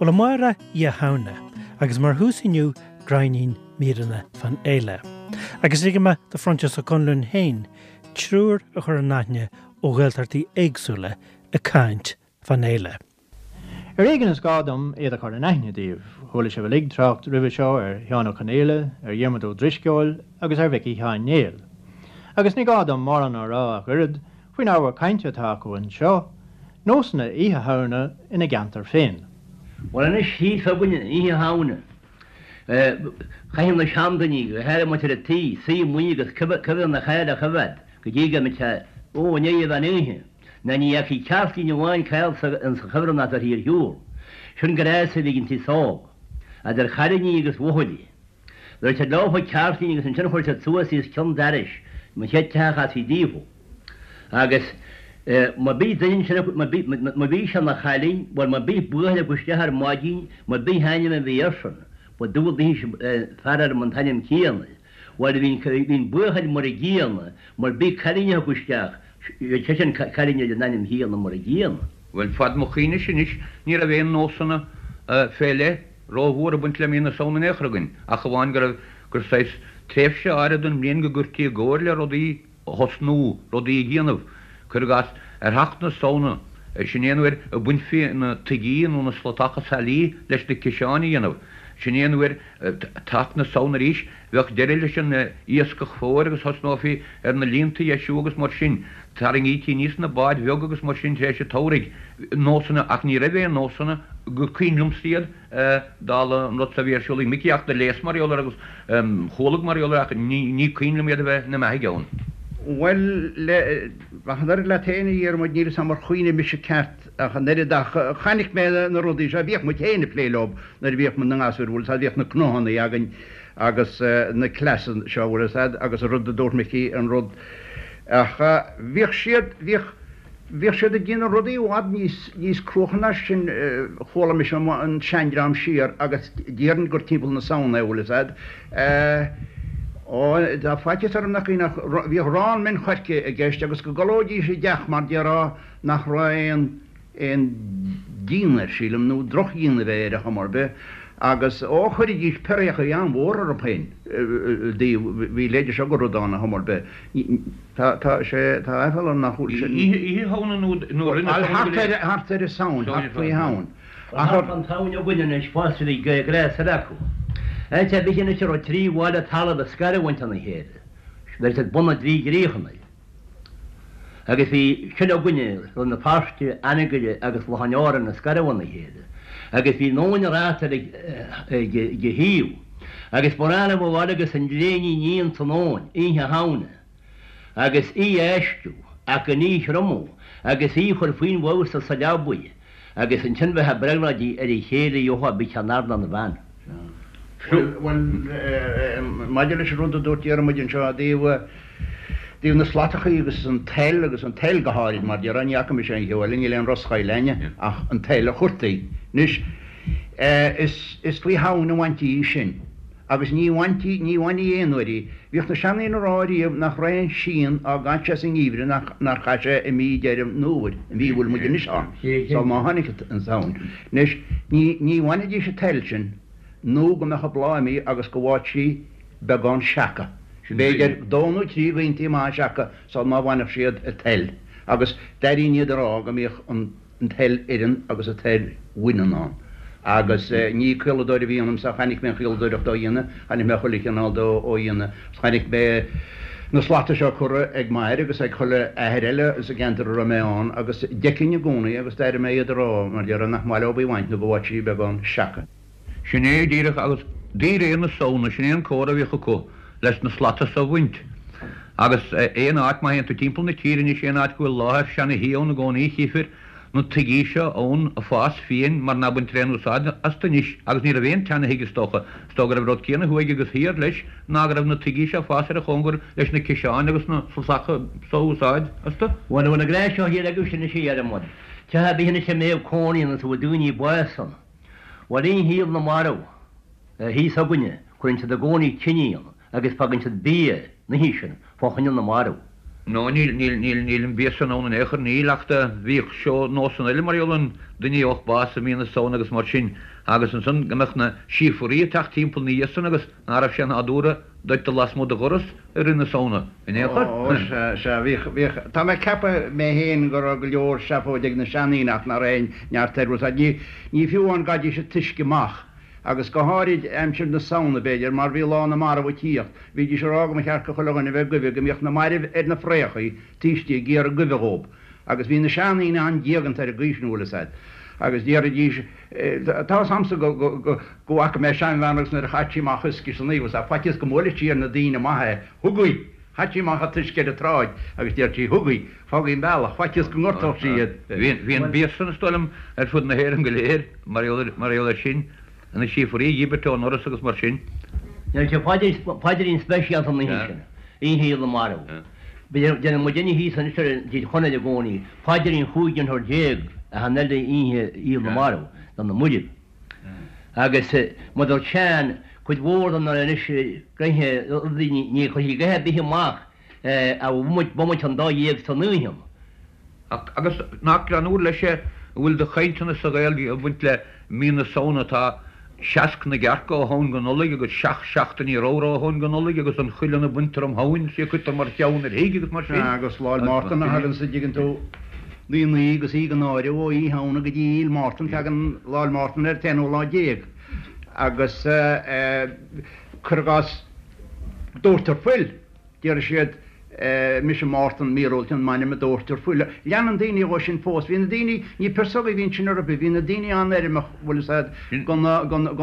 Bhuel amárach Oíche Shamhna, agus mar thús inniu gráinnín míreanna fán fhéile. Agus ligfidh mé do Phroinsias Ó Conluain féin triúr a chur in aithne ó Ghaeltachtaí éagsúla ag caint fán fhéile. Ar éigean is gá dom iad a chur in aithne daoibh. Chuala sibh uilig trácht roimhe seo ar Sheán Ó Conaola, ar Dhiarmuid Ó Drisceoil agus ar Mhicí Sheáin Néill. Agus ní gá dom mórán a rá ach oiread faoin ábhar cainte atá acu anseo, nósanna Oíche Shamhna ina gceantar féin. Bhuel anois thíos againne, Oíche Shamhna, chaitheadh na seandaoine, go háirithe muintir an tí, suí amuigh agus cuibhreann na caille a choimheád go dtí go mbeadh sé, ó, i ndiaidh an mheán oíche. Ná ní fheicfí ceirtlín amháin caillte ins an chuibhreann ná bheirthí ar shiúl. Sin gnás a bhí ag an t-aos óg. Idir chailíní agus bhuachaillí. Bheir siad leofa ceirtlín agus ansin chuir siad suas í os cionn dorais an chéad teach a chasfaí daofa. Agus má bhí duine ansin acu, má bhí, má bhí sé ina chailín, bhuel má bhí buachaill acu isteach ar maidin, má bhí ainm a bhí airsean, ba dual daoithe fear ar an t-ainm céanna. Bhuel, bhí an buachaill mar a gcéanna, mar bhí cailín acu isteach, bhí seisean cailín ar an ainm chéanna mar a gcéanna. Bhuel, fad mo chuimhnese anois, ní raibh aon nósanna fé leith rómhór ag baint le mí na Samhna in aon chor againn, ach amháin go raibh, gur saghas tréimhse áirid den mbliain go gcuirtí i gcóir le rudaí a thosnú, rudaí a dhéanamh. Cuir i gcás, ar theacht na Samhna, sin é an uair a bhainfí na tuigí nó na slatacha sailí leis na ciseáin a dhéanamh. Sin é an uair, teacht na Samhna arís, bheadh deireadh leis an iascach fómhair agus thosnófaí ar na líonta a dheisiú agus mar sin. Tarraingítí aníos na báid bheaga agus mar sin tar éis an tsamhraidh. Nósanna, ach ní raibh aon nósanna, gur cuimhin liomsa iad, dála an rud so a bhí ar siúl ag Micí ach do léas mar gheall air agus chualag mar gheall air ach ní cuimhin liom iad a bheith ina mbeathaidh ann. Bhuel, le, ach an oiread leat féin a Dhiarmuid, níl 'fhios a'm ar chuimhnigh mise ceart ach an oiread ach chonaic mé na rudaí seo, bhíodh muid féin ag plé leo nuair a bhíodh muid 'na ngasúir, bhfuil 'fhios a'd, bhíodh na cnóthannaí againn agus na cleasa seo, bhfuil 'fhios a'd, agus an rud a dúirt Micí, an rud, ach bhíodh siad, bhíodh. Bhíodh siad ag déanamh rudaí i bhfad níos, níos cruaiche ná sin, chuala mise an seandream siar agus déarfainn gur timpeall na Samhna é, bhfuil 'fhios a'd. Ó, tá faitíos orm nach ach bhíodh arán min choirce i gceist agus go gcodlóidís i dteach mar déarfá nach raibh aon, aon díon air, sílim, nó drochdhíon a bheith air ar chuma ar bith agus, ó, chuiridís piréachaí an-mhór orthu féin i dtaobh, bhí leide seo go rud ann ar chuma ar bith. Tá, tá sé, tá aiféala orm nach bhfuil sin. Oíche Shamhna nó, nó roimh na Samhna go léir? Thart ar an Samhain, thart faoi Shamhain. Ach thart fán tSamhain againn anois fosta bhí gnás eile acu. Áit ar bith anois a raibh trí bhaile talaimh ag scarúint óna chéile, bheir siad bun na dtrí gcríochanna. Agus bhí sin againne, Rann na Feirste, Anagaire agus Loch an Árainn ag scaradh óna chéile. Agus bhí nóin ráta ag ag a thaobh. Agus ba ghnách leo a ghabháil agus an ghréin a ní ins an abhainn, Oíche Shamhna, agus í a fheistiú, ach gan í a thriomú, agus í a chur faoin bhfeabhas sa leabaidh, agus ansin bheith ag brionglóidí ar a chéile a gheofá bith ceann ard ná na bhean. Bhuel, maidir leis an rud a dúirt Diarmuid anseo i dtaobh, dtaobh na slatachaí agus an tsail, agus an tsail go háirid, mar déarfá, ní fhaca mise aon cheo eile, níl aon roschoill a'inne ach an tsail a chuirtí. Anois, Is faoi Shamhain a bhaintí í sin. Agus ní bhaintí, ní bhainfí aon uair í. Bhíodh na seandaoine a rá riamh nach raibh aon síon á gcaint sé sa ngeimhreadh nach nár chaith sé i mí Deireadh an Fhómhair, an mhí a bhfuil muid anois ann, sul má tháinig an tSamhain. Anois, ní, ní bhainfidís an tsail sin nó go mbeadh an bláth imithe agus go bhfaigheadh sí beagán seaca. B'fhéidir dó nó trí ghaontaí maithe seaca sul má bhainfeadh siad an tsail. Agus d'airínn iad a rá go mbíodh an. an tsail fhireann agus an tsail bhaineann ann. Agus ní caoladóir a bhí ionamsa, chonaic mé an chaoladóireacht á dhéanamh, chonaic mé chuile chineál de á dhéanamh, agus chonaic mé na slata seo curtha ag m'athair agus ag chuile athair eile sa gceantar a raibh mé ann, agus d'fheicfinn i gcónaí agus d'airigh mé iad a rá, mar déarfá, nach maith leo í a bhaint nó go bhfaigheadh sí beagán seaca. Sin é díreach agus de réir na Samhna, sin é an comhartha a bhíodh acu leis na slata so a bhaint. Agus aon áit, má théann tú timpeall na tíre anois, aon áit go bhfuil láthair seana-thí ann i gcónaí, chífir na tuigí seo ann ag fás fiáin mar ná baintear aon úsáid astu anois. Agus ní raibh aon tseana-thigh is dócha. Is dócha go raibh an rud céanna thuaidh agus thiar leis ná go raibh na tuigí seo ag fás ar a chóngar leis na ciseáin agus na slatacha so a úsáid astu. Bhuel, an bhfuil an gnás seo thiar agaibhse anois a Dhiarmuid? Teach ar bith anois a mbeadh cónaí ann is a bhfuil daoine bás ann. Bhuel, oíche Shaol na Marbh thíos againne, cuireann siad i gcónaí tine ann agus fágann siad bia an oíche sin fá choinne na marbh. No, níl, níl, níl, níl an bia san ann in aon chor, níl, ach do bhíodh seó nósanna eile mar gheall ar duine a gheobhadh bás i mí na Samhna agus mar sin agus ansan go mbeadh na síofraí ag teacht timpeall ina dhiaidh san agus ná raibh sé nádúrtha duit dul lasmuigh de dhoras i rith na Samhna in aon chor. Ó, sea, sea, bhíodh, bhíodh, tá mé ag ceapadh mé fhéin go raibh go leor seafóid ag na seandaoine ach ná raibh aon neart air, bhfuil 's a'd, ní, ní fiú amháin go gcaithidís an t-uisce amach. Agus go háirid aimsir na Samhna, b'fhéidir, mar bhí Lá na Marbh ag tíocht, bhídís ag rá go mba cheart go chuile dhuine a bheith ag goimhe go mbíodh na mairbh ar na fraochaí taobh istigh ag iarraidh goimhe dhób. Agus bhí na seandaoine an-diaganta ar an gcaoi sin, bhfuil fhios a'd. Agus déarfaidís, tá fhios a'msa go, go, go, go bhfaca mé seanbhean agus nuair a chaith sí amach uisce san oíche, bhfuil fhios a'd, faitíos go mbuailfeadh sí ar na daoine maithe é, Thugaí! Chaith sí amach an t-uisce ar an tsráid agus deir sí, Thugaí! Fágaí an bealach, faitíos go ngortódh sí iad. Bhí an bia san, is dóigh liom, ar fud na hÉireann go léir, mar gheall air sin, na síofraí a dhíbirt ón ndoras agus mar sin. Ní raibh paidrín speisialta an oíche sin, Oíche Fhéile na Marbh. Déanann muidinne thíos anois ar an dTír Chonaill i gcónaí paidrín chúig dhéantóir achan uile Oíche Fhéile na Marbh do na mairbh. Agus mar a dúirt Seán, cuid mhór de na anois gnoithe rudaí ní chuirfí a dhath ar bith amach a bhomaite an dá dhéag san oíche. Agus nach greannmhar leis é a bhfuil de chainteanna sa Ghaeilge ag baint le mí na Samhna, tá seasc na gcearc ó Shamhain go Nollaig agus seacht seachtainí ramhra ó Shamhain go Nollaig agus an cuileann a baintear um Shamhain, is é a cuirtear mar cheann ar thigh agus mar sin. Agus Lá 'le Mártan a thagann sa dtuigeann tú, naoi naoi agus í gan áireamh ó Oíche Shamhna go dtí Oíche Mártan, tagann Lá 'le Mártan ar an t-aonú lá déag agus cuir i gcás doirtear fuil. Déarfaidh siad, Mise Mártan míorúilt an m'ainm a dóirtear fuil. Leanann daoine dhó sin fós. Bhí na daoine, ní piarsógaí a bhí ansin ar bith, bhí na daoine an-fheirmeach, bhfuil fhios a'd, go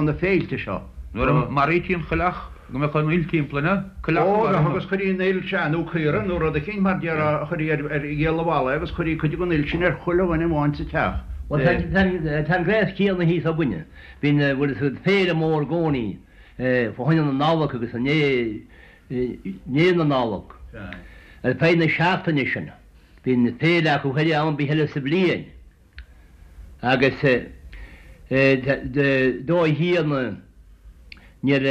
na féilte seo. Nuair a maraítí an choileach, go mbeadh an fhuil timpeall, an ea? Coileach a mharaíodh. Ó, agus chuirí an fhuil, sea, nó caora nó rud eicínt mar déarfá, chuirí ar ghialla bhalla é agus chuirí cuid den fhuil sin ar chuile dhuine amháin sa teach. Bhuel, tá an gnás céanna thíos againne. Bíonn, bhfuil fhios a'd, féile mór i gcónaí fá choinne na Nollag agus i ndiaidh i ndiaidh na Nollag. Ar feadh na seachtaine sin, bíonn féile acu thoir am ar bith eile sa bhliain agus dóigh chéanna níor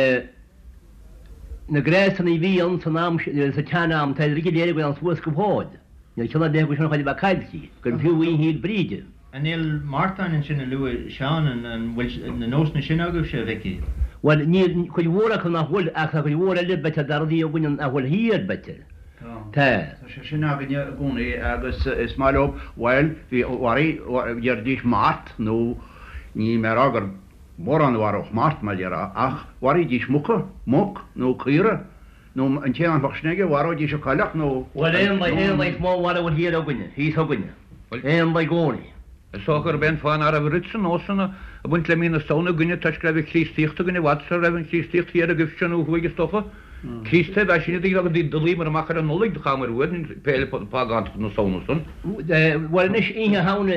na gnásanna a bhí ann san am sa tsean-am tá iad go léir ag dul suas go fóill. Níl ceann ar bith acu sin chóir a bheith caillte, gur fiú Oíche Fhéil Bríde. An Fhéile Mártan ansin a luaigh Seán, an bhfuil na nósanna sin agaibhse, a Mhicí? Bhuel, níl, cuid mhór acu nach bhfuil, ach tá cuid mhór eile b'fhéidir de rudaí againn nach bhfuil thiar, b'fhéidir. Tá. Tá. Tá sé sin againne i gcónaí agus is maith leo, bhuel, bhí, mharaigh, déarfaidís mart nó níl mé a rá gur mórán a mharódh mart, mar déarfá, ach mharaídís muca, muc nó caora. Nó an té nach mbeadh sin aige, mharóidís an coileach nó. Bhuel, éanlaith, éanlaith is mó a mhaireann thiar againne, thíos againne. Éanlaith i gcónaí. Is dócha gurb é an fáth ná raibh oiread san nósanna ag baint le mí na Samhna againne toisc go raibh an Chríostaíocht againn i bhfad sara raibh an Chríostaíocht thiar agaibhse nó thuaidh is dócha. Críostaithe ab ea sinne agus do luíomar amach ar an Nollaig do chaitheamar uainn féile phágántach na Samhna san. Bhuel anois, Oíche Shamhna,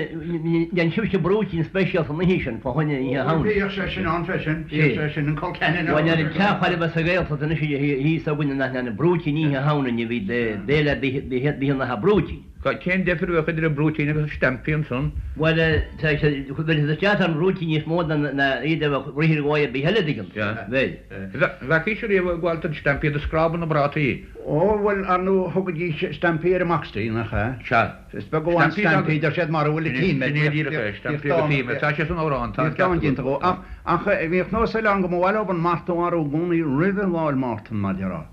dhein sibhse brúitín speisialta an oíche sin, fá choinne Oíche Shamhna. Bhíodh sé sin ann freisin, bhíodh sé sin, an col ceannann ann. Bhuel, ar an teach chóir a bheith sa Ghaeltacht anois thíos againne nach ndearnadh brúitín Oíche Shamhna, ní bhí béile ar bith, bhí an brúitín. Cén deifir a bheadh idir an brúitín agus an stampy ansan? Bhuel, tá sé, bheadh isteach ar an bhrúitín níos mó ná iad a bheadh rith ar dhóigh ar bith eile, an dtuigeann tú. Bheadh. Bhfeacaís ariamh ag gabháil don stampy do scrábadh na bprátaí. Ó, bhuel, ar ndóigh, thugaidís stampy ar an mboxty, nach ea? Sea. Is beag amháin stampy, deir siad, mara bhfuil an tím air. Sin é díreach é, stampy agus tím air. Tá sé san amhrán, tá an ceart agat. Bhíodh dán déanta dhó. Ach, bhíodh nós eile ann go mba mhaith leo an mart a mharú i gcónaí roimhe Lá 'le Mártan, mar déarfá.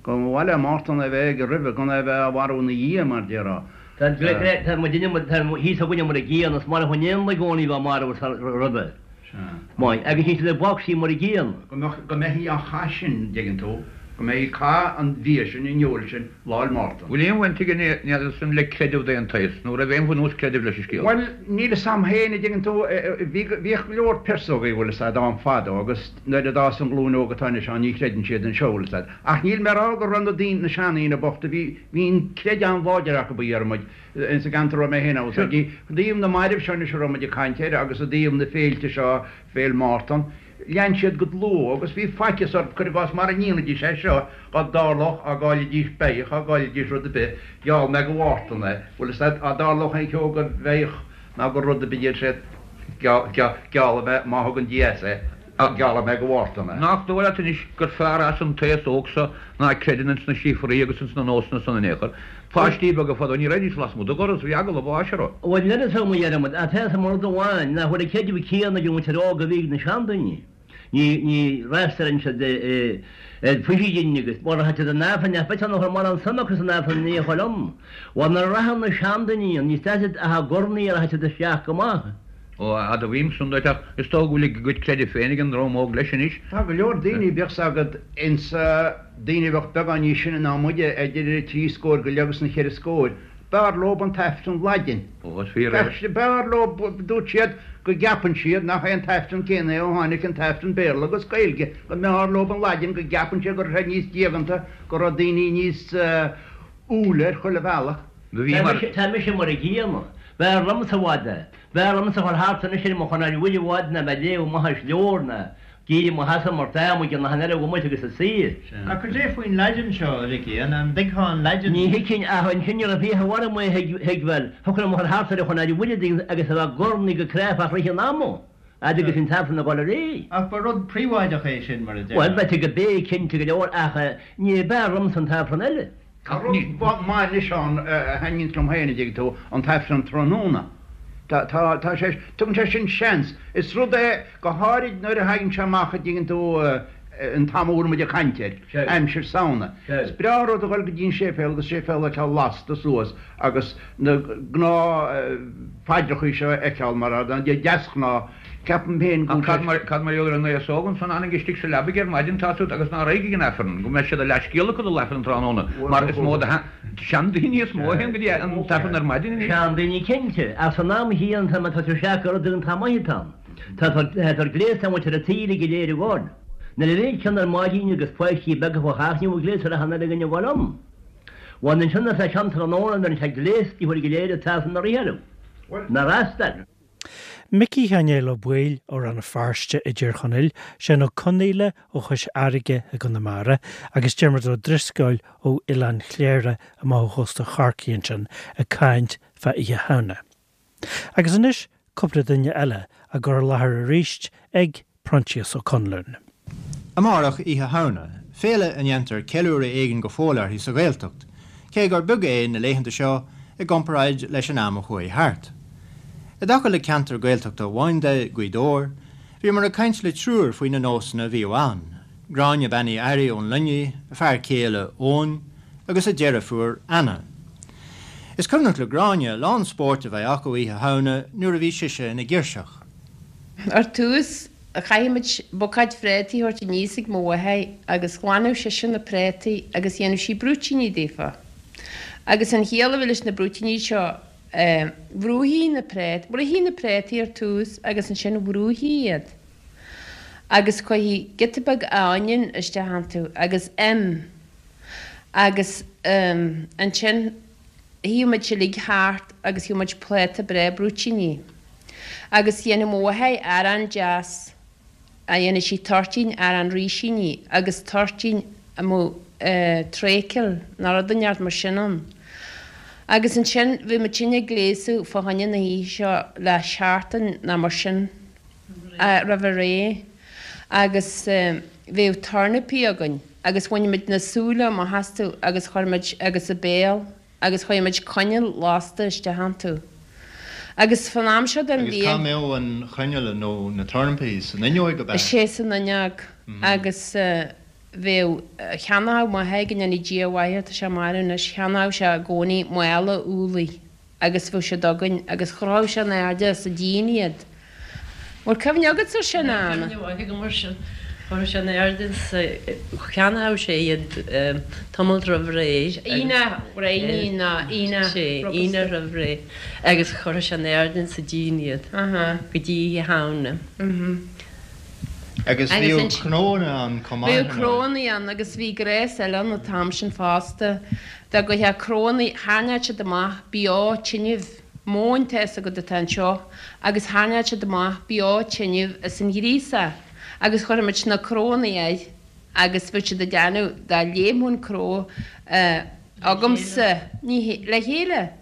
Go mba mhaith le Mártan a bheith aige roimhe, gan é a bheith á mharú ina dhiaidh, mar déarfá. Tá tá muidinne, tá thíos againne mar a gcéanna, is marbh an éanlaith i gcónaí a bheith marbh roimhe. Sea. Maith. Agus níl siad ag boxty mar a gcéanna. Go mbeadh, go mbeifí á chaith sin, an dtuigeann tú, go mbeifí ag caith an bhia sin, an fheoil sin, Lá 'le Mártan. Bhfuil aon bhaint ag an n'fheadar san le creideamh d'aon tsaghas, nó raibh aon bhunús creidimh leis an scéal? Bhuel, níl fhios a'm féin, a dtuigeann tú, bhí, bhíodh go leor piarsógaí, bhfuil fhios a'd, ann fadó agus nuair a d'fhás an ghlúin óg atá anois ann ní chreideann siad anseo, bhfuil fhios a'd. Ach níl mé a rá go raibh na daoine, na seandaoine bochta, bhí, bhí an creideamh an-láidir acu, a Dhiarmuid, ins an gceantar a raibh mé féin ann, bhfuil fhios a'd. I dtaobh na mairbh seo anois a raibh muid ag caint air agus i dtaobh na féilte seo, Féile Mártan, Lean siad go dlúth agus bhí faitíos orthu, cuir i gcás, mara ndéanfaidís é seo, dhá dtarlódh, á gcaillfidís beithíoch, á gcaillfidís rud ar bith, gheall mé go Mhártan é, bhfuil fhios a'd, á dtarlódh aon cheo go bheithíoch ná go rud ar bith, deir siad, geallfaidh mé má thugann Dia as é. Geallfaidh mé go Mhárta mé. Nach dóigh leat anois gur fearr as an t-aos óg so ná creideann ins na síofraí agus ins na nósanna san in aon chor. Páistí beaga fadó ní raghaidís lasmuigh de dhoras, bhí eagla báis orthu. Bhuel níl fhios agam a Dhiarmuid, ach tá fhios agam rud amháin, nach bhfuil an creideamh céanna ag an mhuintir óg a bhí ag na seandaoine. Ní, ní fhreastalaíonn siad ar phaidríní agus mura rachadh siad in Aifreann, nach bhfeictear nach raibh mórán suim acu san Aifreann in aon chor liom. Bhuel nuair a rachadh na seandaoine ann, níos deise ach i gcornaí a rachadh siad isteach go maith. Ó, admhaím san duit, ach is dóigh go bhfuil a gcuid creidimh féin ag an ndream óg leis anois. Tá go leor daoine, bíodh 's agat, insa daoine a bheadh beagán níos sine ná muide, idir an trí scóir go leith agus an cheithre scóir, b'fhearr leob an t-Aifreann Laidin. Ó, is fíor é. B'fhearr leob, dúirt siad, go gceapann siad nach é an t-Aifreann céanna é ó tháinig an t-Aifreann Béarla agus Gaeilge, go mb'fhearr leob an Laidin, go gceapann siad go raibh sé níos diaganta, go raibh daoine níos umhaile ar chuile bhealach. Do bhí mar. Tá mise mar a gcéanna. B'fhearr liomsa i bhfad é. B'fhearr liomsa a dhul thart anois ar mo chonair mhuire i bhfad ná bheith ag léamh amach as leabhar ná ag éirí i mo sheasamh mar tá muid in achan eile bhomaite agus ag suí. Ach cad é faoin Laidin seo, a Mhicí? An dtuigfeá an Laidin? Ní thuigfinn ach ansin ní raibh fiacha orm é a thuigbheáil. Thiocfadh liom a dhul thart ar an chonair mhuire agus a bheith ag urnaí go cráifeach rith an ama, fhad agus an t-aifreann ag dul ar aghaidh. Ach ba rud príobháideach é sin, mar a déarfá. Bhuel, b'fhéidir go b'é, cinnte go leor, ach ní b'fhearr liomsa an t-aifreann eile. Tá rud maith anois ann a thaitníonns liom féin, a dtuigeann tú, an t-aifreann tráthnóna. Tá, tá, tá sé, tugann sé sin seans. Is rud é, go háirid nuair a thagann sé amach, a dtuigeann tú, an t-am a bhfuil muid ag caint air, aimsir Samhna. Is breá an rud a dhul go dtí an séipéal agus séipéal a fheiceáil lasta suas agus na gnáth-phaidreachaí seo a fheiceáil mar a deasghnáth. Ceapaim féin go Ach cad mar, cad mar gheall ar an aos óg ansan a fhanann istigh sa leabaidh ar maidin, tá siad, agus ná raghaidh ag an Aifreann, go mbeidh siad a leathscéal acu dul Aifreann tráthnóna, mar is mó de sheandaoine is mó a théann go dtí an tAifreann ar maidin anois. Seandaoine cinnte, ach san am chéanna tá mé ag tosú isteach gur rud iontach maith atá ann. Tá tá gléasta an mhuintir an tí uilig go léir ag gabháil. Nuair a bhíonn ceann ar maidin agus páistí beaga fá theach ní bhfuil gléas ar achan uile dhuine ag gabháil ann. Bhuel ansin is é ceann tráthnóna nuair atá gléasta uilig go léir an tAifreann a rith orthu. Ná fhreastal. Micí Sheáin Néill Ó Baoill ó Rann na Feirste i dTír Chonaill, Seán Ó Conaola ó Chois Fharraige i gConamara agus Diarmuid Ó Drisceoil ó Oileán Chléire amach ó chósta Chorcaí ansin ag caint fá Oíche Shamhna. Agus anois cúpla duine eile á gcur i láthair arís ag Proinsias Ó Conluain. Amárach Oíche Shamhna, féile a ndéantar ceiliúradh éigin go fóill uirthi sa Ghaeltacht, cé gur beag é na laethanta seo i gcomparáid leis an am a chuaigh thart. I dtaca le ceantar Gaeltachta amháin de, Gaoth Dobhair, bhíomar ag caint le triúr faoi na nósanna a bhíodh ann, Gráinne Bean Uí Fhearraigh ón Luinnigh, a fear céile Eoin, agus a deirfiúr Anna. Is cuimhneach le Gráinne a lán spóirt a bheith acu Oíche Shamhna nuair a bhí sise ina girseach. Ar tús, chaithfeadh muid bucáid phréataí a thabhairt aníos ag mo mháthair agus ghlanadh sise na préataí agus dhéanadh sí brúitíní daofa. Agus an chiall a bhí leis na brúitíní seo, bhrúithí na prét, bhruithí na préataí ar tús agus ansin bhrúithí iad. Agus chuirthí giota beag oinniún isteach iontu agus im agus ansin shuíodh muid uilig thart agus gheobhadh muid pláta breá brúitíní. Agus dhéanadh mo mháthair arán deas, a dhéanadh sí toirtín arán rísíní agus toirtín a mbeadh traochal nó rud inteacht mar sin ann. Agus ansin bhí muid sinne ag gléasadh fá choinne na hoíche seo le seachtain nó mar sin roimh ré agus bhíodh tornapaí againn agus bhaineadh muid na súile amach astu agus chuir muid agus a béal agus chuir muid coinneal lasta isteach iontu. Agus fan am seo den Agus cá bhliain. mbeadh an choinneal nó na tornapaí? San fhuinneoig ab ea? Sea, san fhuinneog. Agus bheadh, cheannódh m'athair, go ndéana Dia a mhaith air, tá sé marbh anois, cheannódh sé i gcónaí mála úllaí agus bheadh siad againn agus chrochadh sé in airde sa díon iad. Bhfuil cuimhne agatsa ar sin, a Anna? Tá cuimhne mhaith agam air sin. Chuireadh sé in airde sa, cheannódh sé iad tamall roimh ré. Aoine ghréine nó Aoine Sea, Aoine roimh ré agus chuireadh sé in airde sa díon iad go dtí Oíche Shamhna. Agus bhíodh cnónna ann chomh maith, Bhíodh cnónna ann agus bhí gnéas eile ann an t-am sin fosta. Dá gcuirfeá cnónna, tharraingeodh siad amach beo tinnibh. Móin tá fhios agat atá anseo agus tharraingeodh siad amach beo tinnibh as an ghríosach agus chuirfeadh muid na cnónna air agus bheadh siad ag déanamh dá léimfeadh an cró agamsa, ní hé, le chéile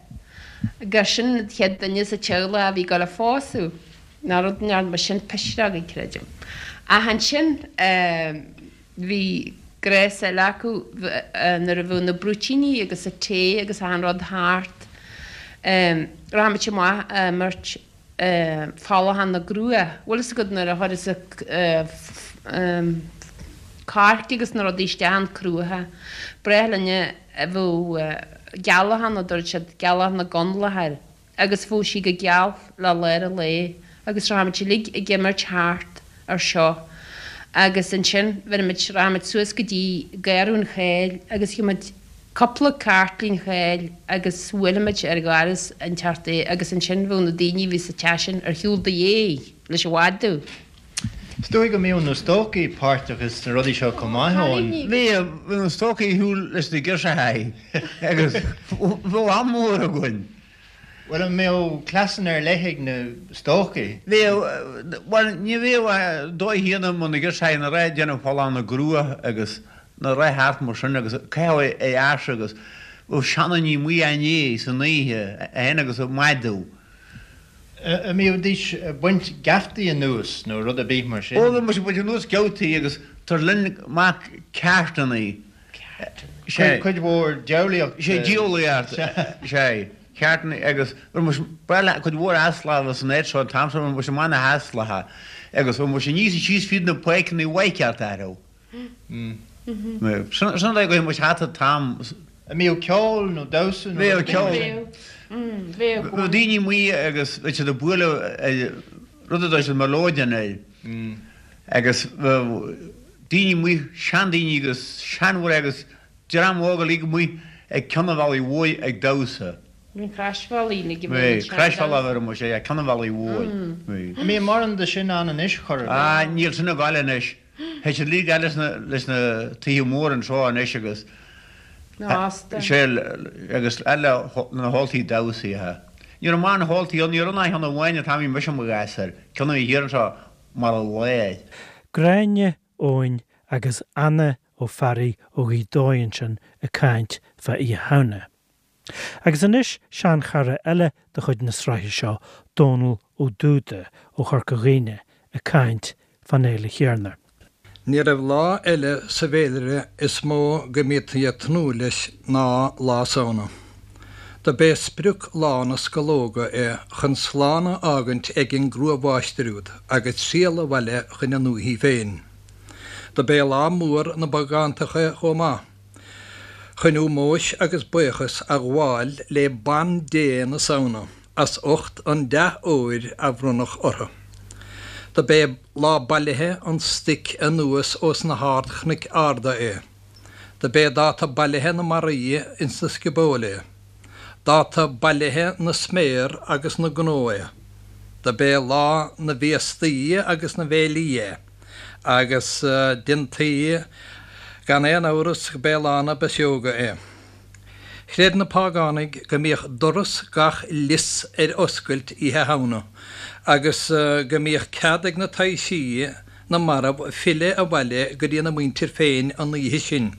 gur sin an chéad duine sa teaghlach a bhí ag dul a phósadh. Ná rud a ndearna sin pisreogaí, creidim. Ach ansin bhí gnás eile acu nuair a bheadh na brúitíní agus an tae agus achan rud thart, rachadh muid amach ag imirt folachán na gcrua. Bhfuil fhios agat nuair a chuireas an coirce agus na rudaí isteach an cruacha, b'ghnách linn a bheadh gealach ann a dúirt siad, gealach na gConallach air. agus bheadh sí go geal le lár an lae agus rachadh muid uilig ag imirt thart ar seo agus ansin bheireadh muid, rachadh muid suas go dtí Garradh an Cháil agus gheobhadh muid cúpla cairtlín cháil agus bhuailfeadh muid ar dhoras an teach é agus ansin bheadh na daoine a bhí sa teach sin ar shiúl do dhéidh leis an mhadadh. Is dóigh go mbíodh na stócaigh páirteach sna rudaí seo chomh maith, Eoin. Bhíodh, bhí na stócaigh ar shiúl leis na girseachaí agus bheadh am mór againn. Bhuel, an mbeadh cleasanna ar leith ag na stócaigh? Bhíodh, bhuel, ní bhíodh ach dóigh chéanna mar na girseachaí ina raibh ag déanamh folachán na gcrua agus na raibh thart mar sin agus caitheadh é ar ais agus bheadh seandaoine amuigh á ndiaidh san oíche féin agus ag madadh. An mbídís ag baint geaftaí anuas nó rud ar bith mar sin? Ó, bhí muid ag baint anuas geaftaí agus tar linn amach ceártannaí. Sea. Cuid mhór diabhlaíocht. Sea, diabhlaíocht. Sea, ceártannaí agus bhí muid, bhuel, cuid mhór easlacha san áit seo an t-am seo, bhí muid amach na heaslacha agus bhí muid aníos is síos fríd na páirceanna mhaith ceart orthu. Sin an dóigh go raibh muid thart an t-am. An mbíodh ceol nó damhsa nó rud ar bith mar sin? Bheadh. Bheadh daoine amuigh agus bheadh siad ag bualadh rud a dúirt siad melodeon air agus bheadh daoine amuigh, seandaoine agus seanmhná agus dream óg uilig amuigh ag ceann an bhealaigh mhóir ag damhsa. Bhí an Croisbhealaí uilig a bhí an Croisbhealach a bhí muid ag ceann an bhealaigh mhóir. An mbíonn mórán de sin ann anois chor ar bith? Ah níl sin ag gabháil anois. Tá siad uilig leis na leis na tithe móra anseo anois agus sé agus eile na hóltaí damhsaithe. Ní raibh mórán hóltaí ann, ní raibh ach ceann amháin an t-am a bhí mise i mo ghasúr, ceann a bhí thiar anseo mar a láir. Gráinne Eoin agus Anna Ó Fearraigh ó Ghaoth Dobhair ansin ag caint fá Oíche Shamhna. Agus anois seanchara eile de chuid na sraithe seo, Dónal Ó Dúda ó Chorca Dhuibhne ag caint fán fhéile chéanna. Ní raibh lá eile sa bhféilire is mó go mbítí ag tnúth leis ná Lá Samhna. Do b'é sprioc lá na scológa é chun slán a fhágaint ag an gcrua-mháistir úd agus triall abhaile chun a ndúichí féin. Do b'é lá mór na bpágántach é chomh maith. chun ómóis agus buíochas a ghabháil le Ban-Dé na Samhna as ucht an dea-fhómhair a bhronnadh orthu. Do b'é lá bailithe an stoic anuas ós na hard-chnoic arda é. Do b'é dáta bailithe na mbarraí ins na sciobóil é. Dáta bailithe na sméar agus na ngnó é. Do b'é lá na bhféastaí agus na bhféilí é. Agus déantaí gan aon amhras go b'é lá na bpiseoga é. Chreid na págánaigh go mbíodh doras gach lios ar oscailt Oíche Shamhna agus go mbíodh cead ag na taibhsí na marbh filleadh abhaile go dtí na muintir féin an oíche sin.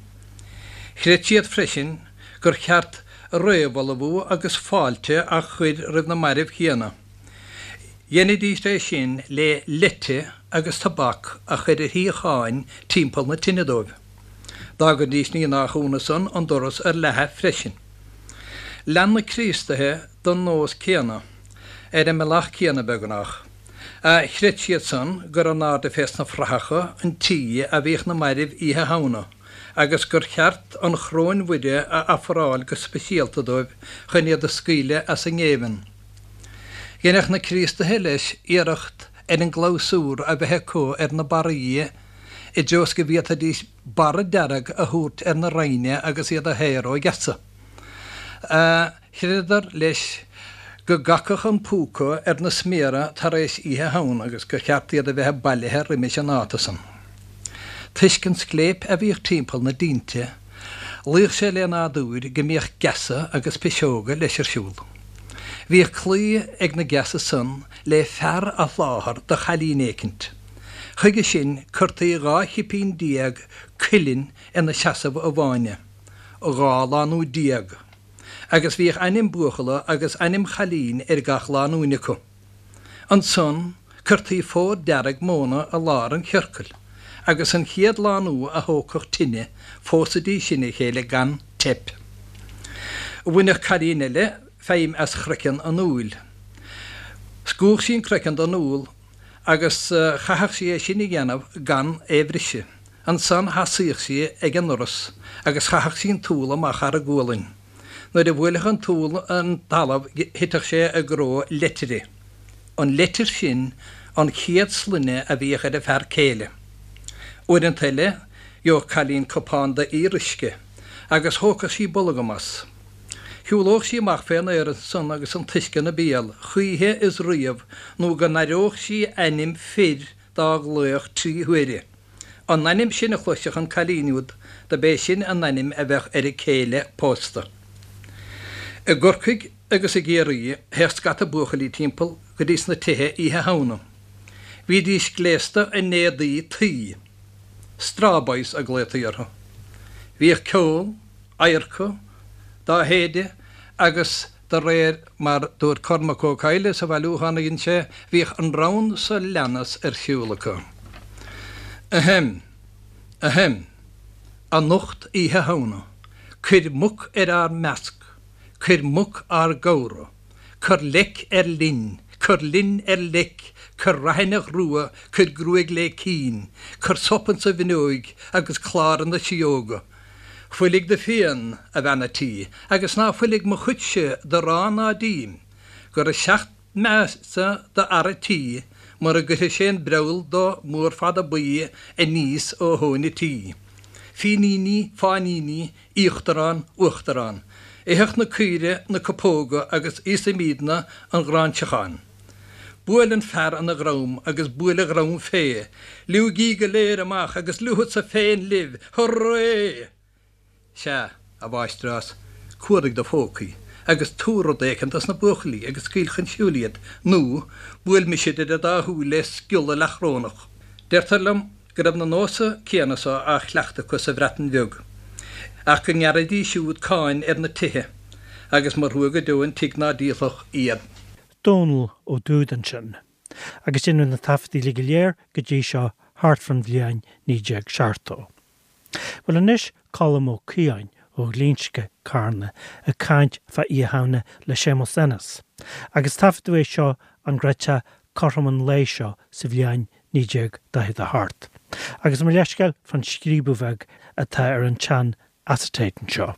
Chreid siad freisin gur cheart réamhullmhú agus fáilte a chur roimh na mairbh chéanna. Dheinidís é sin le leite agus tobac a chur ar shuíocháin timpeall na tine dóibh. D'fhágaidís ní nách ionadh san an doras ar leathadh freisin. Lean na Críostaithe don nós céanna, ar an mbealach céanna beagnach. Chreid siad san gur in airde fés na fraitheacha an tí a bhíodh na mairbh Oíche Shamhna agus gur cheart an Choróin Mhuire a ofráil go speisialta dóibh chun iad a scaoileadh as a ngéibheann. Dheineadh na Críostaithe leis iarracht ar an gclabhsúr a bheith acu ar na barraí i dtreo is go bhféadfaidís barra dearg a thabhairt ar na raithne agus iad a shaoradh ó gheasa. Chreideadar leis go gcacfadh an púca ar na sméara tar éis Oíche Shamhna agus gur cheart iad a bheith bailithe roimis an ndáta san. Toisc an scléip a bhíodh timpeall na dtinte, luíodh sé le nádúr go mbíodh geasa agus piseoga leis ar siúl. Bhíodh claí ag na geasa san le fear a sholáthar do chailín éicint. Chuige sin cuirtí 12 chipín cuilinn ina seasamh i bhfáinne, 12 lánúin, agus bhíodh ainm buachalla agus ainm chailín ar gach lánúin acu. Ansan. Cuirtí fód dearg móna i lár an chiorcail, agus an chéad lánúin a thógfadh tine, phósaidís sin a chéile gan teip. Bhaineadh cailín eile feidhm as chroiceann an úill. Scuabhadh sí an croiceann den úll agus chaithfeadh sí é sin a dhéanamh gan é bhriseadh. Ansan sheasaíodh sí ag an ndoras agus chaitheadh sí an t-úll amach thar a gualainn. Nuair a bhuailfeadh an t-úll an talamh thitfeadh sé i gcró leitire. An leitir sin an chéad sloinne a bhíodh ar an fear céile. Uaireanta eile gheobhadh cailín cupán d'fhíoruisce agus thógfadh sí bolgam as. Shiúlódh sí amach fén aer ansan agus an t-uisce ina béal, choíche is riamh nó go n-aireodh sí ainm fir dá ghlaoch trí huaire. An ainm sin a chloisfeadh an cailín úd do b'é sin an ainm a bheadh ar a céile pósta. I gCorcaigh agus i gCiarraí théadh scata buachaillí timpeall go dtí sna tithe Oíche Shamhna. Bhídís gléasta in éadaí tuí. Straw boys a glaotaí orthu. Bhíodh ceol, adharca, dá shéideadh agus de réir mar dúirt Cormac Ó Cadhla sa bhailiúchán a dhein sé, bhíodh an rann so leanas ar siúl acu. Ahem! Ahem! Anocht Oíche Shamhna, cuir muc ar ár measc, cuir muc ár gcomhra, cuir leic ar linn, cuir linn ar leic, cuir raithineach rua, cuir gruaig lé cinn, cuir sop insa bhfuinneoig agus clár ina sidheoga. Fuiligh do phian, a bhean a' tí, agus ná fuiligh mo chuidse d'arán ná d'im, gur a sheacht measa do fhear a' tí mura gcuirfidh sé an breall do mhór fada buí aníos ó thóin a' tí. Fíníní, fáiníní, íochtarán, uachtarán. Itheadh na caoire na cupóga agus íosaimídne an ghráinseachán. Buail an fear ina dhrom agus buail a dhrom fé. Liúigí go léir amach agus liúfadsa féin libh. Hurray! Sea, a mháistreás, cuardaigh do phócaí agus tabhair rud éicint dos na buachaillí agus scaoil chun siúil iad, nó buail mise idir an dá shúil le sciolla leathchrónach. Deirtear liom go raibh na nósa céanna so á chleachtadh acu sa Bhreatain Bheag, ach go ngearraidís siúd cáin ar na tithe, agus mba thrua go deo an tigh ná díolfadh iad. Dónall Ó Dúda ansin. Agus deineadh na taifeadtaí uilig go léir go dtí seo thart fán bhliain 1970. Bhuel anois Colm Ó Caodháin ó Ghlinsce, Carna, ag caint fá Oíche Shamhna le Séamus Ennis. Agus taifeadadh é seo an gcreidfeá cothrom an lae seo sa bhliain 1948. Agus mo leithscéal fán scríobadh bheag atá ar an tsean acetate anseo.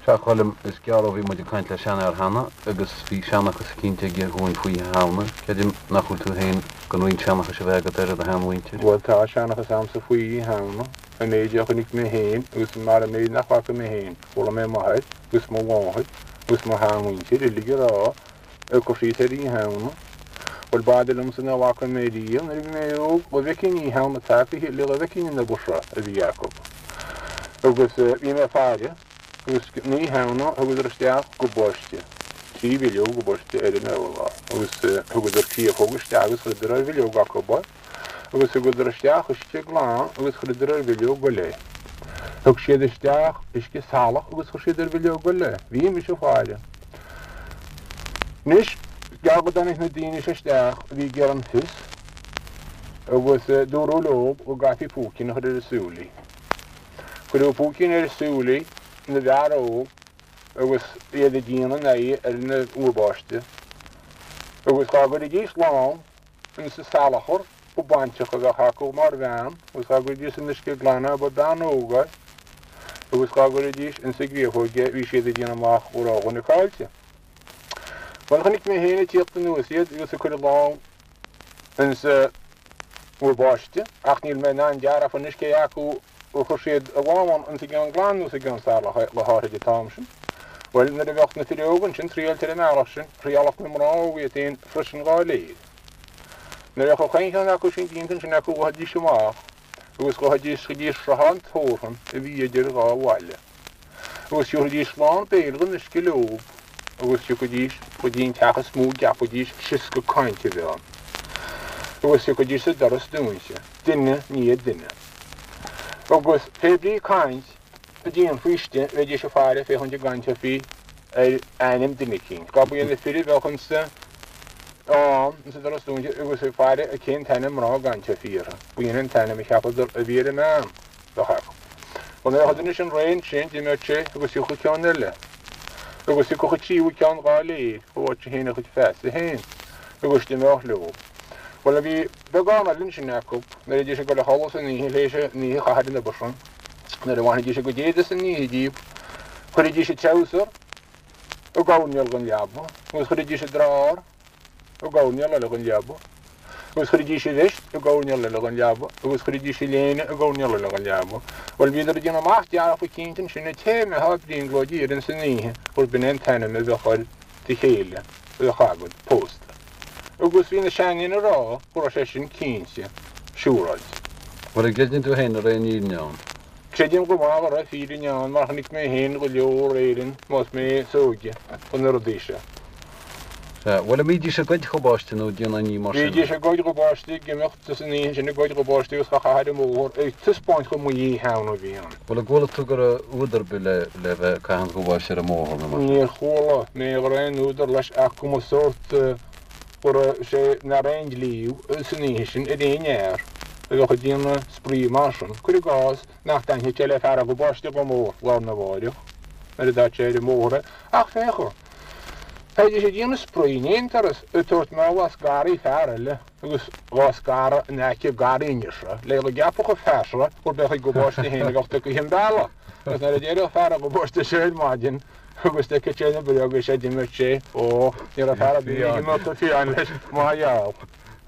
Sea, a Choilm, is gearr ó bhí muid ag caint le seanfhear cheana agus bhí seanchas eicínt aige dhúinn faoi Oíche Shamhna. Creidim nach bhfuil tú féin gan roinnt seanchais a bheith agat ar do sheanmhuintir. Bhuel, tá seanchas a'msa faoi Oíche Shamhna, an méid a chonaic mé féin agus mar an méid nach bhfaca mé féin. Chuala mé m'athair agus mo mháthair agus mo sheanmhuintir uilig ag rá ag cur síos ar Oíche Shamhna. Bhuel, b'fhada liomsa nach bhfaca mé riamh nuair a bhí mé óg, go bhfeicfinn Oíche Shamhna tagtha le go bhfeicfinn an obair seo a bhí acu. Agus bhí mé ag faire agus an Oíche Shamhna thugadar isteach gob báistí, trí bhileog gob báistí ar an urlár agus thugadar créafóg isteach agus chuireadar ar bhileog acu é agus thugadar isteach uisce glan agus chuireadar ar bhileog eile é. Thug siad isteach uisce salach agus chuir siad ar bhileog eile é. Bhí mise ag faire. Anois, is gearr go dtáinig na daoine seo isteach a bhí ag iarraidh an fios agus dúradh leo go gcaithfí púicín a chur ar a súilí. Cuireadh púicín ar a súilí na bhfear óg agus iad ag déanamh a n-aghaidh ar an úr báistí agus dhá gcuiridís lámh insa salachar ba baintreach a bheadh acu mar bhean agus dhá gcuiridís san uisce glan é ba bean óg é agus dhá gcuiridís insa gcréafóig é bhí siad ag déanamh amach go raibh dhuine caillte. Bhuel chonaic mé féin ag tíocht anuas iad agus ag cur a lámh insa úr báistí ach níl mé in ann dearfa anois cé acu ar chuir siad a lámh ann insa gceann glan nó sa gceann salach le háithrid an t-am sin. Bhuel nuair a bheadh na fir óga ansin triailte ar an mbealach sin, thriálfadh na mná óga iad féin freisin dhá léir. Nuair a bheadh chaon cheann acu sin déanta ansin acu ghabhaidís amach agus ghabhaidís go dtí sruthán tabhartha a bhí idir dhá bhaile agus thiúrfaidís lán béil den uisce leob agus thiocfaidís go dtí an teach is mó a gceapfaidís sioscadh cainte a bheith ann agus thiocfaidís sa doras dúinse, duine i ndiaidh duine. Agus pé brí caint a déanfaí istigh bheidís ag faire féachaint an gcainteofaí ar ainm duine eicínt. Dhá ba iad na fir a bheadh insa. Ann sa doras dúinte agus ag faire a cén t-ainm mná gan te fíortha. B'in an t-ainm a cheapadar a bhí ar an mbean bheadh acu. Bhuel nuair a thugann sin réidh ansin d'imeodh sé agus thiocfadh ceann eile. Agus thiocfadh an tríú ceann dhá léir a bhfaighidh sé féin a chuid feasa féin agus d'imeodh leo. Bhuel bhí beagán eile ansin acu nuair a bhídís ag dul a chodladh san oíche théis an oíche a chaitheamh ar an obair sin. Nuair a bhainfidís a gcuid éide san oíche díobh chuiridís a treabhsar i gcoirnéal den leaba agus chuiridís a drár i gcoirnéal eile den leaba agus chuiridís a veist i gcoirnéal eile den leaba agus chuiridís a léine i gcoirnéal eile den leaba. Bhuel, bhíodar ag déanamh amach dearfa cinnte ansin an té a mbeifeá ag brionglóidí air ins an oíche gurb in é an t-ainm a bheadh ar do chéile a bheadh agat pósta. Agus bhí na seandaoine ag rá go raibh sé sin cinnte siúráilte. Bhuel, an gcreideann tú féin an raibh aon fhírinne ann? Creidim go maith go raibh fírinne ann mar chonaic mé féin go leor Éireann más mé is óige do na rudaí seo. Sea, bhuel, an mbídís ag goid ghobáiste nó ag déanamh aon ní mar sin? Bhídís ag goid ghobáiste, ag imeacht san oíche sin ag goid ghobáiste agus á chaitheamh ar an mbóthar ag taispeáint chomh maith Oíche Shamhna a bhí ann. Bhuel, an gcuala tú go raibh údar ar bith le le bheith ag caitheamh an ghobáiste ar an mbóthar nó mar sin? Níor chuala mé go raibh aon údar leis ach go mba sórt go raibh sé nach raibh aon dlí san oíche sin ar aon fhear a bheadh ag déanamh spraoi mar sin. Cuir i gcás nach dtaitneodh sé le fear a ghobáiste chomh mór lá arna mháireach nuair a d'fhág sé ar an mbóthar é. Ach féach, bheidís ag déanamh spraoi in aon turas ag tabhairt mála as garraí fear eile agus dhá scaradh in aice garraí an fhir seo le go gceapfadh an fear seo gurb é a chuid gabáiste féin a bheadh tugtha an bealach agus nuair a d'éireodh fear an ghabáiste seo ar maidin agus d'fheicfeadh sé na bréaga seo d'imeodh sé ó ní raibh fear ar bith ag imeacht fiáin leis mar gheall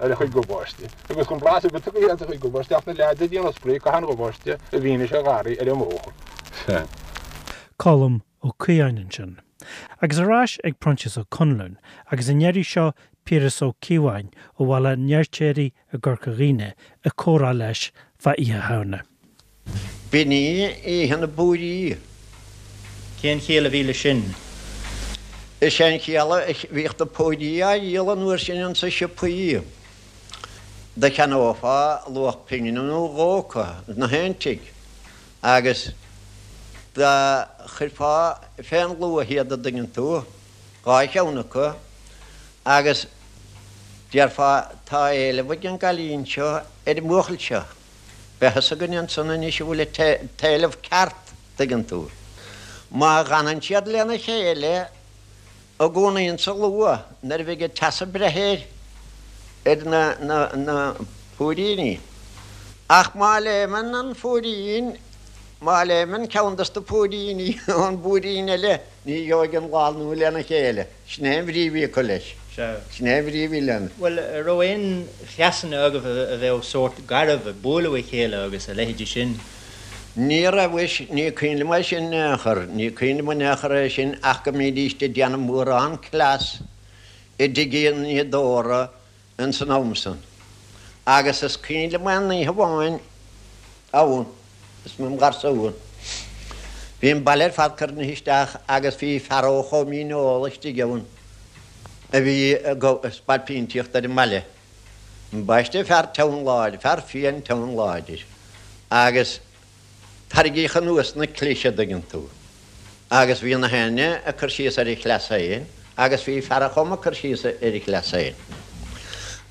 ar a chuid gabáiste. Agus gan blas ar bith tugtha as a chuid gabáiste ach na leaids ag déanamh spraoi ag caitheamh an ghabáiste i bhfianaise an gharraí ar an mbóthar. Colm Ó Caodháin ansin. Agus ar ais ag Proinsias Ó Conluain, agus an iarraidh seo Piaras Ó Cíobháin ó Bhaile an Fheirtéaraigh i gCorca Dhuibhne ag comhrá leis fá Oíche Shamhna. B'in í oíche na bpúirí. Cén chiall a bhí leis sin? Is é an chiall a bhíodh na púirí á dhíol an uair sin insa siopaí. Do cheannófá luach pingine nó dhó acu 'na haon tigh agus do chuirfeá fén luaith iad a' dtuigeann tú, dhá cheann acu, agus déarfá tá éileamh ag an gcailín seo ar an mbuachaill seo. Beidh fhios againn ansan anois an bhfuil an t-éileamh ceart, tuigeann tú. Má dh'fhanann siad lena chéile i gcónaí insa luaith nuair a bheidh an teas ag breith air, ar na, na, na púiríní. Ach má léimeann an phúirín, má léimeann ceann dos na púiríní ón bpúirín eile, ní gheobhaidh an lánúin lena chéile. Sin é an bhrí a bhí acu leis. Sea. Sin é an bhrí a bhí lena. Bhuel, a' raibh aon chleasanna agaibh a bheadh sórt garbh, ag bualadh a chéile agus a leithéidí sin? Ní raibh, mhuis, ní cuimhin liom é sin in aon chor, ní cuimhin liom in aon chor é sin ach go mbídíst ag déanamh mórán cleas i dtigh an fhíodóra ins an am san. Agus is cuimhin liom aon oíche amháin ann, is mé im gharsún. Bhí an baile ar fad cruinnithe isteach agus bhí fear ó Chó Míneola istigh ann a bhí ag spailpínteacht ar an mbaile. Ambaiste fear teann láidir, fear fiáin teann láidir. Agus Tarraingíodh anuas na clis a dtuigeann tú. Agus bhí na héinne ag cur síos ar a chleas féin agus bhí fear a' Choma ag cur síos ar a chleas féin.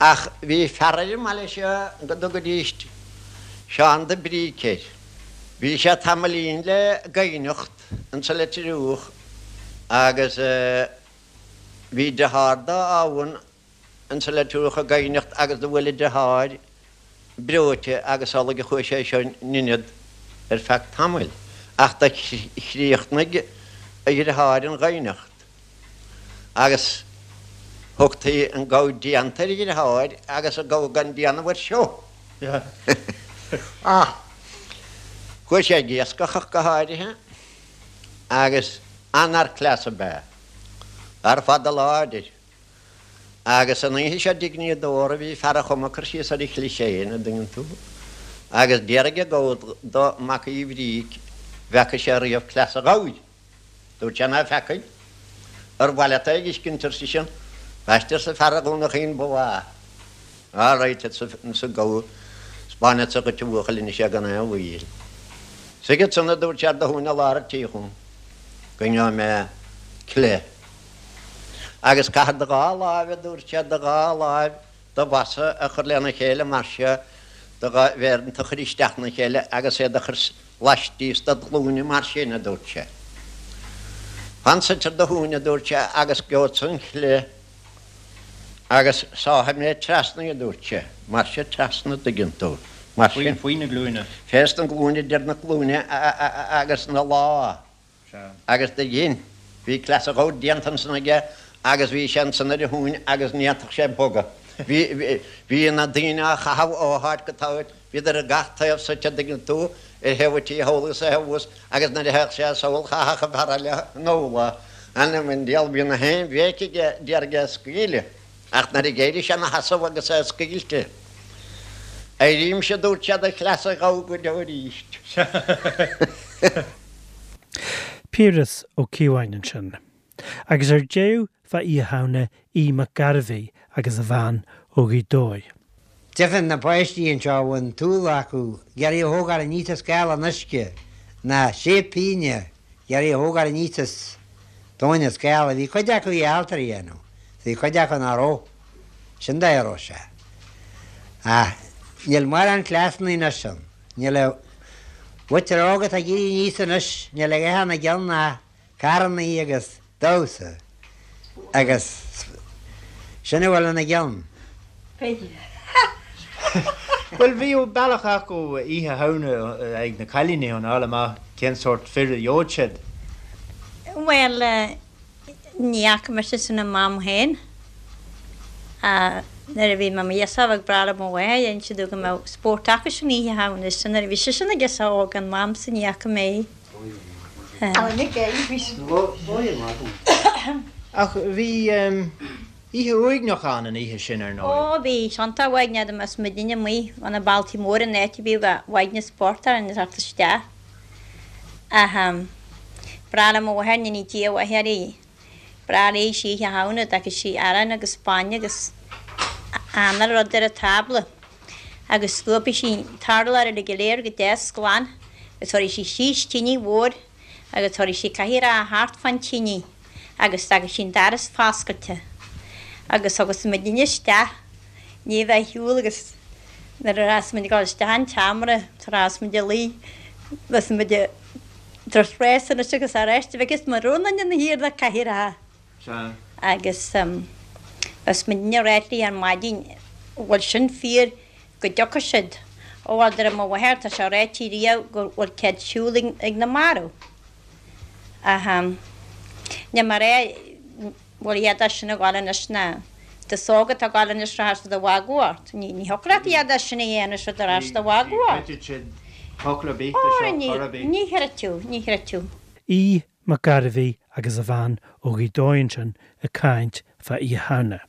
Ach bhí fear ar an mbaile seo go dtugaidíst Seán de Bríc air. Bhí sé tamaillín le gaibhneacht insa Leitir Fhiodhach agus bhí deartháir dó ann insa Leitir Fhiodhach ag gaibhneacht agus do bhuail a deartháir breoite agus amhlaidh a chuaigh sé seo in inead ar feadh tamaill. Ach do chríochnaigh a dheartháir an ghaibhneacht agus thugtaí an gabha déanta ar a dheartháir agus an gabha gan déanamh air seo. Ach chuaigh sé ag iascach ach go háirithe agus an-fhear cleasa ab ea. Fear fada láidir. Agus an oíche seo i dtigh an fhíodóra bhí fear a' Choma ag cur síos ar a chlis féin, a' dtuigeann tú. Agus d'fhiafraigh an gabha do Mac Uí Bhríc bhfeaca sé riamh cleas a' ghabhair. Dúirt sé ná feacaidh. Ar mhaith leat é a dh'fheiscint, ar seisean. Ambaiste arsa fear Dhún a' Chaoin ba mhaith. All right, arsa an gabha, 'spáinfeadsa dhuit a bhuachaill anois é gan aon mhoill. Suigh ansan, a dúirt sé ar do thóin i lár a' tí chugam, go ngeobhaidh mé cleith. Agus caithfir do dhá láimh, a dúirt sé, do dhá láimh, do bhosa a chur lena chéile mar seo, do dhá mhéar a chur isteach ina chéile agus iad a chur laistíos dod ghlúine mar sin, a dúirt sé. Fan suite ar do thóin, a dúirt sé, agus gheobhadsa an chliath agus sáfaidh mé trasna í, a dúirt sé, mar seo trasna, an dtuigeann tú, mar sin. Faoi na glúine. Fés na glúine, idir na glúine agus na lámha. Agus do dhein. Bhí cleas a ghabh déanta ansan aige agus bhí sé ansan ar a thóin agus ní fhéadfadh sé bogadh. Bhí, bhí na daoine á chaitheamh ó háit go háit, bhíodar ar gach taobh suite, an dtuigeann tú, ar thaobh an tí thall agus ar thaobh thuas agus nuair a théadh sé sall chaithfeadh an fear eile anall é. Anam an diabhail, bhí na haon bhéic aige d'iarraidh é a scaoileadh. Ach nuair a d'éirigh sé ina sheasamh agus é scaoilte, Éirímse, a dúirt sé, do chleas a ghabh go deo arís. Piaras Ó Cíobháin ansin. Agus ar deireadh fá Oíche Shamhna Aodh Mac Gairbhí agus a bhean ó Ghaoth Dobhair. Deirfinn na páistí anseo a bhfuil an t-ualach acu ag iarraidh a thógáil aníos as scáil an uisce, ná sé pínne ag iarraidh a thógáil aníos as tóin an scála. Bhí cuid acu ábalta a dhéanamh, bhí cuid acu nach raibh. Sin dóigh a raibh sé. Ach níl mórán cleasanna anois ann. Níl an mhuintir óg atá ag éirí aníos anois, níl a dhath ina gceann ach carrannaí agus damhsa agus sin a bhfuil ina gceann. Bhuel, bhíodh bealach acu Oíche Shamhna ag na cailíní chun a fháil amach cén sórt fir a gheobhadh siad. Bhuel, Ní fhaca mise sin i m'am féin. Nuair a bhí mé i mo ghirseach ag brath le mo mháthair, d'inis sí domh go mbeadh spórt acu sin Oíche Shamhna. Sin nuair a bhí sise ina girseach óg, in m'amsa ní fhaca mé é. Ach bhí oíche uaigneach ann an oíche sin, ar ndóigh. Ó, bhí. Iontach uaigneach dá mbeadh muidinne amuigh ó na bailtí móra in áit a bhíodh uaigneas spórt orainn ag teacht isteach. Ach b'bhreá le mo mháthair, go ndéana Dia a mhaith uirthi, b'bhreá léi Oíche Shamhna, d'fheiceadh sí arán agus bainne agus anáil rud ar an tábla agus scuabfaidh sí an t-urlár uilig go léir go deas glan agus tabharfaidh sí síos tinidh mhór agus tabharfaidh sí cathaoireacha thart fán tinidh agus d'fhágfaidh sí an doras foscailte agus thiocfadh muidinne isteach ní bheith ar shiúl agus nuair a bheas muid ag dul isteach an tseomra tar éis muid a luí bheas muid ag tabhairt rás anois agus arís bhfeiceas muid rún ina thiar na cathaoireacha agus bheas muidinne ag ráit léi ar maidin bhfuil sin fíor go dtiocfaidh siad. Ó bhuel deir mo mháthair tá sé ráite riamh go bhfuil cead siúl ag na marbh. Ach níl mé a rá bhfuil a dhath de sin ag gabháil anois ná d'aos óg atá ag gabháil anois rachaidh siad a mhagadh ort. Ní thiocfadh leat a dhath de sin a dhéanamh siad ar ais do mhagadh ort. Ní chreidfidh siad focal ar bith de seo chor ar bith. Ní chreidfeadh, ní chreidfeadh. Aodh Mac Gairbhí agus a bhean ó Ghaoth Dobhair ansin ag caint fá Oíche Shamhna.